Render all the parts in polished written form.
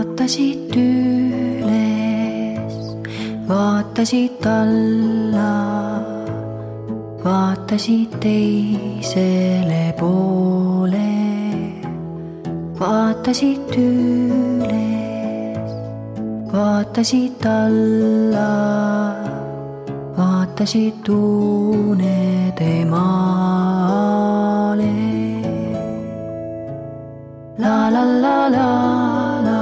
vaatasid üles, vaatasid alla, vaatasid teisele poole, vaatasid üles, vaatasid alla, vaatasid unede maale. La la la la la,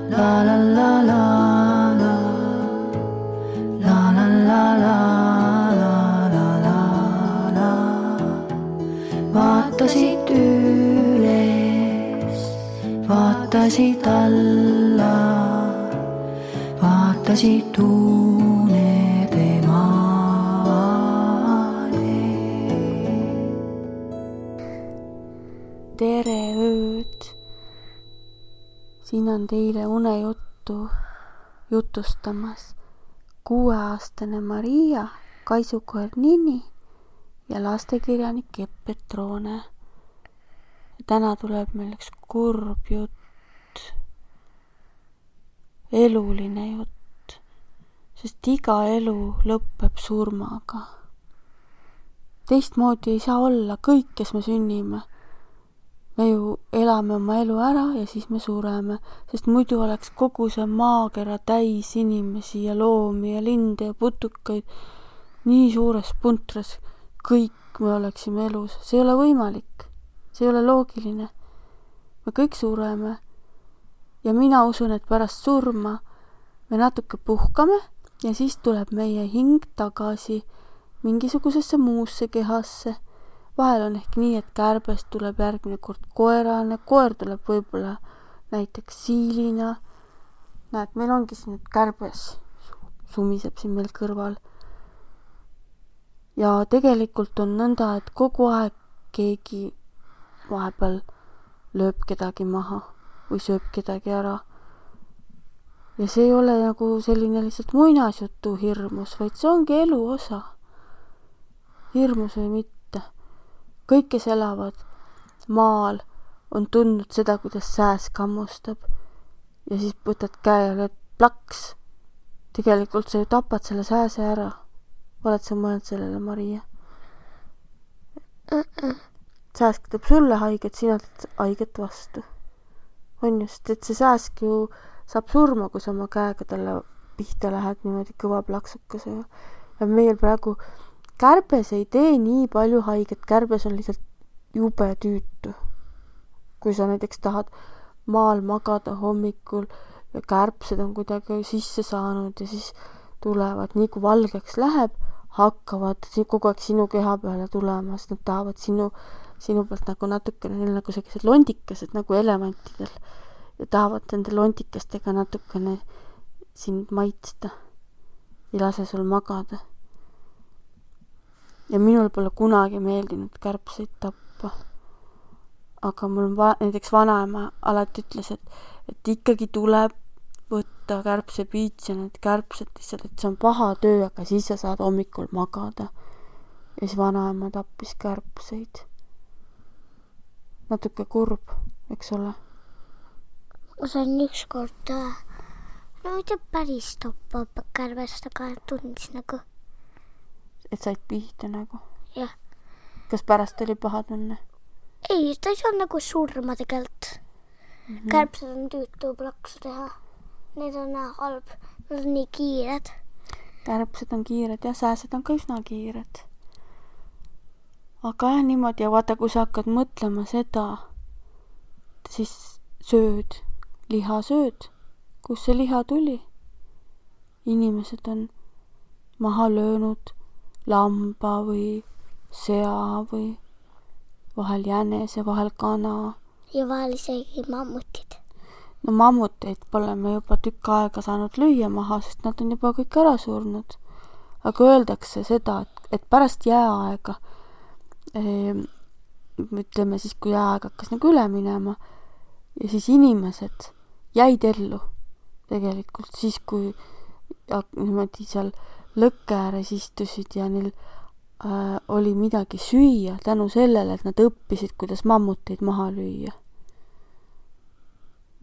la la la la la, la la la la la la la la. Vaatasid üles, vaatasid alla, vaatasid unede maale. Tere ööd! Siin on teile unejuttu jutustamas 6-aastane Maria, kaisukoer Nini ja lastekirjanik Epp Petrone. Täna tuleb meil üks kurb jutt, eluline jutt, sest iga elu lõpeb surmaga. Teistmoodi ei saa olla, kõik, kes me sünnime. Me ju elame oma elu ära ja siis me sureme, sest muidu oleks kogu see maakera täis inimesi ja loomi ja linde ja putukaid nii suures puntras, kõik me oleksime elus. See ei ole võimalik, see ei ole loogiline. Me kõik sureme ja mina usun, et pärast surma me natuke puhkame ja siis tuleb meie hing tagasi mingisugusesse muusse kehasse. Vahel on ehk nii, et kärbest tuleb järgmine kord koerane, koer tuleb võib-olla näiteks siilina. Näed, meil ongi siin nüüd kärbes, sumiseb siin meil kõrval. Ja tegelikult on nõnda, et kogu aeg keegi vahepeal lööb kedagi maha või sööb kedagi ära. Ja see ei ole nagu selline lihtsalt muinasjutu hirmus, vaid see ongi elu osa. Hirmus või mitte. Kõik, kes elavad maal, on tundnud seda, kuidas sääs kammustab. Ja siis võtad käe ja lööd plaks. Tegelikult sa ju tapad selle sääse ära. Oled sa mõelnud sellele, Maria? Sääsk teeb sulle haiget, sina teed haiget vastu. On just, et see sääsk ju saab surma, kui sa oma käega talle pihta lähed niimoodi kõva plaksukasega. Ja meil praegu kärbes ei tee nii palju haiget, kärbes on lihtsalt jube tüütu. Kui sa näiteks tahad maal magada hommikul ja kärbsed on kuidagi sisse saanud ja siis tulevad, nii kui valgeks läheb, hakkavad kogu aeg sinu keha peale tulema, sest nad tahavad sinu pealt nagu natukene, neil nagu sellised londikesed nagu elemantidel ja tahavad nende londikestega natukene sind maitsta ja lase sul magada. Ja minul pole kunagi meeldinud kärbseid tappa. Aga mul näiteks vanaema alati ütles, et ikkagi tuleb võtta kärbsepiits ja need kärbsed lihtsalt, et see on paha töö, aga siis sa saad hommikul magada. Ja siis vanaema tappis kärbseid. Natuke kurb, eks ole? Ma sain ükskord, no mitte päris tappa kärbest, aga tundis nagu. Et said pihta nagu? Jah. Kas pärast oli paha tunne? Ei, ta ei saa nagu surma tegelt. Kärbsed on tüütu plaksu teha. Need on halb. Nad on nii kiired. Kärbsed on kiired ja sääsed on ka üsna kiired. Aga jah, niimoodi. Ja vaata, kui sa hakkad mõtlema seda, siis sööd, liha sööd. Kus see liha tuli? Inimesed on maha löönud lamba või sea või vahel jänese, vahel kana. Ja vahel isegi mammutid. No mammuteid pole me juba tükk aega saanud lüüa maha, sest nad on juba kõik ära surnud. Aga öeldakse seda, et pärast jääaega, ütleme siis, kui jääaeg hakkas nagu üle minema, ja siis inimesed jäid ellu tegelikult siis, kui niimoodi seal lõkke ääres istusid ja neil oli midagi süüa tänu sellele, et nad õppisid, kuidas mammuteid maha lüüa.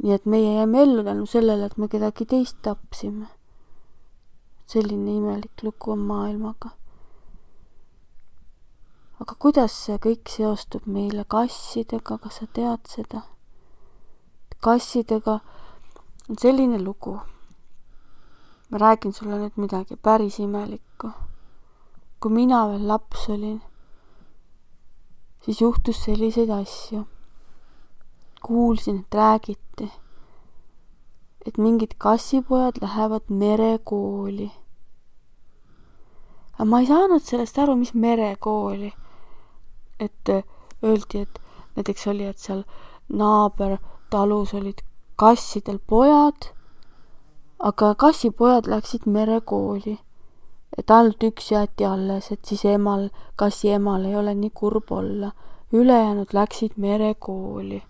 nii et meie jäime ellu tänu sellele, et me kedagi teist tapsime. Selline imelik lugu on maailmaga. Aga kuidas see kõik seostub meile kassidega, kas sa tead seda? Kassidega on selline lugu. Ma räägin sulle nüüd midagi päris imelikku. Kui mina veel laps olin, siis juhtus selliseid asju. Kuulsin, et räägiti, et mingid kassipojad lähevad merekooli. Aga ma ei saanud sellest aru, mis merekooli. Et öeldi, et näiteks oli, et seal naabertalus olid kassidel pojad, aga kassipojad läksid merekooli. Et ainult üks jäeti alles, et siis kassi emal ei ole nii kurb olla. Ülejäänud läksid merekooli.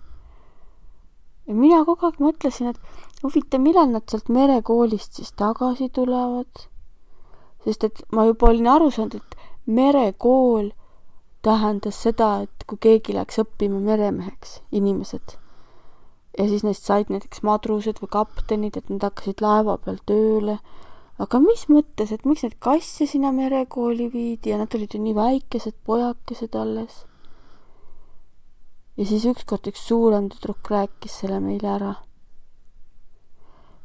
Ja mina kogu aeg mõtlesin, et huvitav, millal nad sealt merekoolist siis tagasi tulevad. Sest et ma juba olin aru saanud, et merekool tähendas seda, et kui keegi läks õppima meremeheks, inimesed, ja siis neist said näiteks madrused või kaptenid, et nad hakkasid laeva peal tööle. Aga mis mõttes, et miks need kasse sinna merekooli viidi ja nad olid ju nii väikesed pojakesed alles. Ja siis ükskord üks suurem tüdruk rääkis selle meile ära.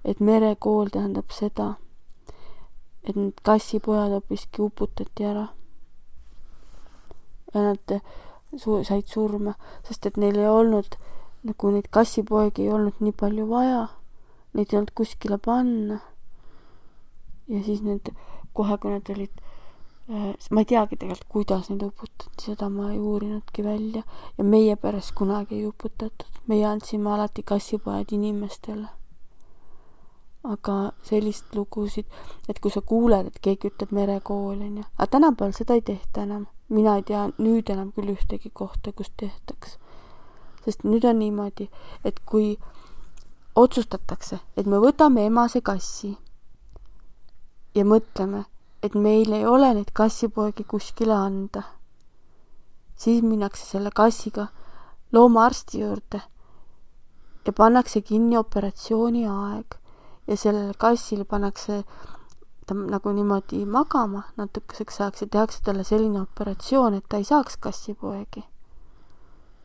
Et merekool tähendab seda, et need kassipojad hoopiski uputati ära. Ja nad said surma, sest et neil ei olnud, nagu neid kassipoegi ei olnud nii palju vaja. Neid ei olnud kuskile panna. Ja siis need, kohe kui nad olid, ma ei teagi tegelikult, kuidas neid uputati, seda ma ei uurinudki välja. Ja meie peres kunagi ei uputatud. Meie andsime alati kassipojad inimestele. Aga sellist lugusid, et kui sa kuuled, et keegi ütleb merekool, aga tänapäeval seda ei tehta enam. Mina ei tea nüüd enam küll ühtegi kohta, kus tehtaks. Sest nüüd on niimoodi, et kui otsustatakse, et me võtame emase kassi ja mõtleme, et meil ei ole neid kassipoegi kuskile anda, siis minnakse selle kassiga loomaarsti juurde ja pannakse kinni operatsiooni aeg ja sellele kassile pannakse ta nagu niimoodi magama natukeseks ajaks ja tehakse talle selline operatsioon, et ta ei saaks kassipoegi.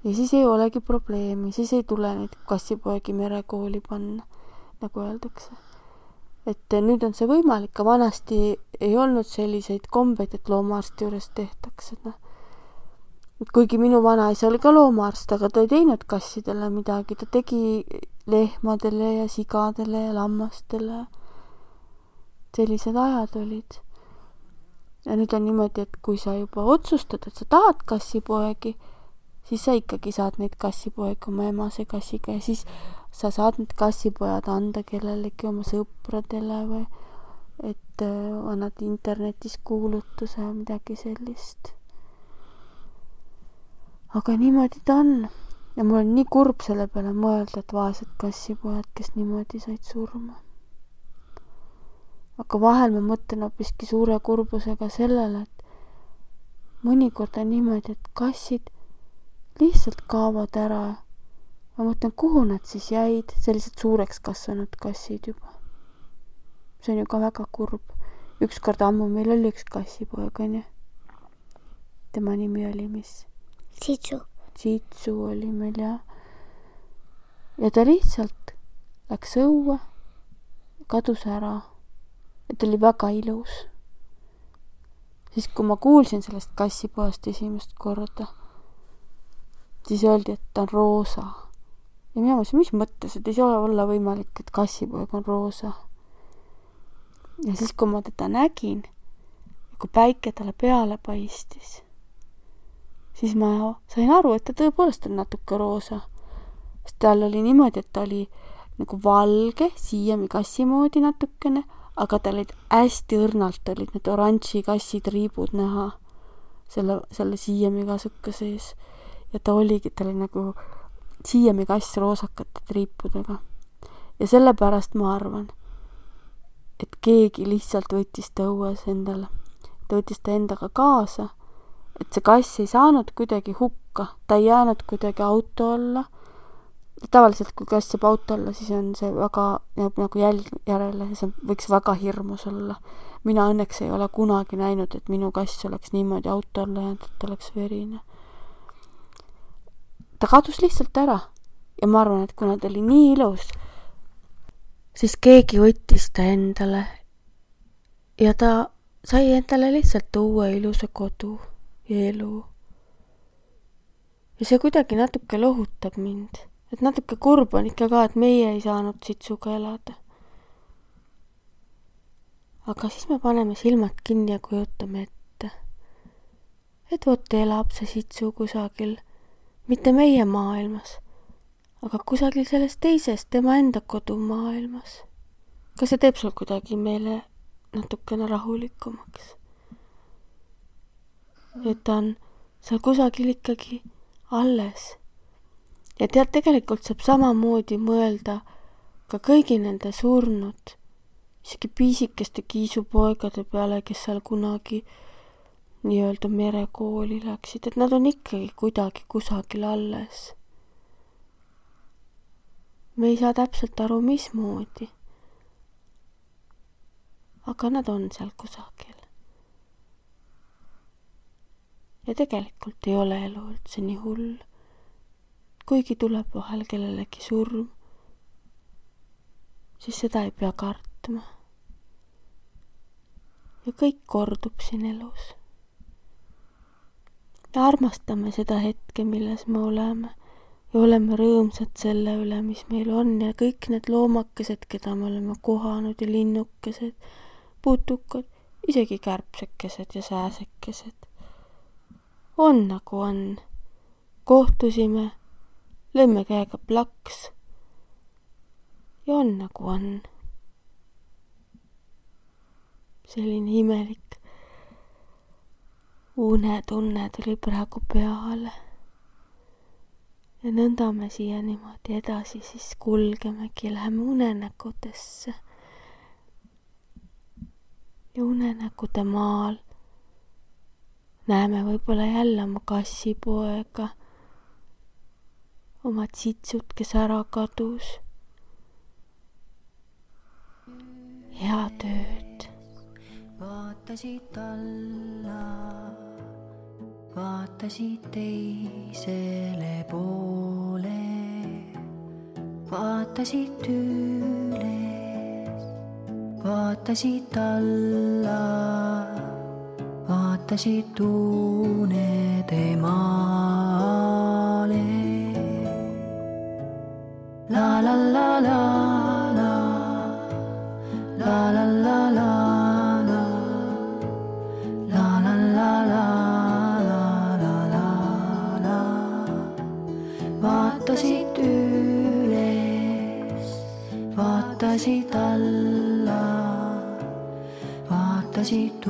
Ja siis ei olegi probleemi, siis ei tule neid kassipoegi merekooli panna, nagu öeldakse. Et nüüd on see võimalik, aga vanasti ei olnud selliseid kombeid, et loomaarsti juures tehtakse. Kuigi minu vanaisa oli ka loomaarst, aga ta ei teinud kassidele midagi. Ta tegi lehmadele ja sigadele ja lammastele. Sellised ajad olid. Ja nüüd on niimoodi, et kui sa juba otsustad, et sa tahad kassipoegi, siis sa ikkagi saad neid kassipoegi oma emase kassiga ja siis sa saad need kassipojad anda kellelegi oma sõpradele või et annad internetis kuulutuse või midagi sellist. Aga niimoodi ta on. Ja mul on nii kurb selle peale mõelda, et vaesed kassipojad, kes niimoodi said surma. Aga vahel ma mõtlen hoopiski suure kurbusega sellele, et mõnikord on niimoodi, et kassid lihtsalt kaovad ära. Ma mõtlen, kuhu nad siis jäid, sellised suureks kasvanud kassid juba. See on ju ka väga kurb. Ükskord ammu meil oli üks kassipoeg, on ju. Tema nimi oli mis? Tsitsu oli meil, jah. Ja ta lihtsalt läks õue, kadus ära. Ja ta oli väga ilus. Siis kui ma kuulsin sellest kassipoest esimest korda, siis öeldi, et ta on roosa. Ja mina mõtlesin, mis mõttes, et ei saa olla võimalik, et kassipoeg on roosa. Ja siis, kui ma teda nägin, kui päike talle peale paistis, siis ma sain aru, et ta tõepoolest on natuke roosa. Sest tal oli niimoodi, et ta oli nagu valge, siiami kassi moodi natukene, aga tal olid hästi õrnalt olid need oranži kassitriibud näha selle siiami kasuka sees. Ja ta oli nagu siiami kass roosakate triipudega. Ja sellepärast ma arvan, et keegi lihtsalt võttis ta õues endale. Ta võttis ta endaga kaasa, et see kass ei saanud kuidagi hukka. Ta ei jäänud kuidagi auto alla tavaliselt, kui kass saab auto alla, siis on see väga, jääb nagu jälg järele ja see võiks väga hirmus olla. Mina õnneks ei ole kunagi näinud, et minu kass oleks niimoodi auto alla jäänud, et ta oleks verine. Ta kadus lihtsalt ära ja ma arvan, et kuna ta oli nii ilus, siis keegi võttis ta endale ja ta sai endale lihtsalt uue ilusa kodu ja elu. Ja see kuidagi natuke lohutab mind. Et natuke kurb on ikka ka, et meie ei saanud Sitsuga elada. Aga siis me paneme silmad kinni ja kujutame ette. Et vot elab see Sitsu kusagil, mitte meie maailmas, aga kusagil selles teises tema enda kodumaailmas. Kas see teeb sul kuidagi meile natukene rahulikumaks? Et ta on seal kusagil ikkagi alles. Ja tead, tegelikult saab samamoodi mõelda ka kõigi nende surnud, isegi piisikeste kiisupoegade peale, kes seal kunagi nii-öelda merekooli läksid, et nad on ikkagi kuidagi kusagil alles. Me ei saa täpselt aru, mismoodi. Aga nad on seal kusagil. Ja tegelikult ei ole elu üldse nii hull. Kuigi tuleb vahel kellelegi surm, siis seda ei pea kartma. Ja kõik kordub siin elus. Ja armastame seda hetke, milles me oleme ja oleme rõõmsad selle üle, mis meil on ja kõik need loomakesed, keda me oleme kohanud ja linnukesed, putukad, isegi kärbsekesed ja sääsekesed. On nagu on. Kohtusime, lõime käega plaks ja on nagu on. Selline imelik unetunne tuli praegu peale. Ja nõnda me siia niimoodi edasi siis kulgemegi, läheme unenäkudesse. Ja unenäkude maal näeme võib-olla jälle oma kassipoega, oma Sitsut, kes ära kadus. Head ööd. Vaatasid alla, vaatasid teisele poole, vaatasid üles, vaatasid alla, vaatasid unede maale. La la la la la, la la la la. Vaatasid üles, vaatasid alla, vaatasid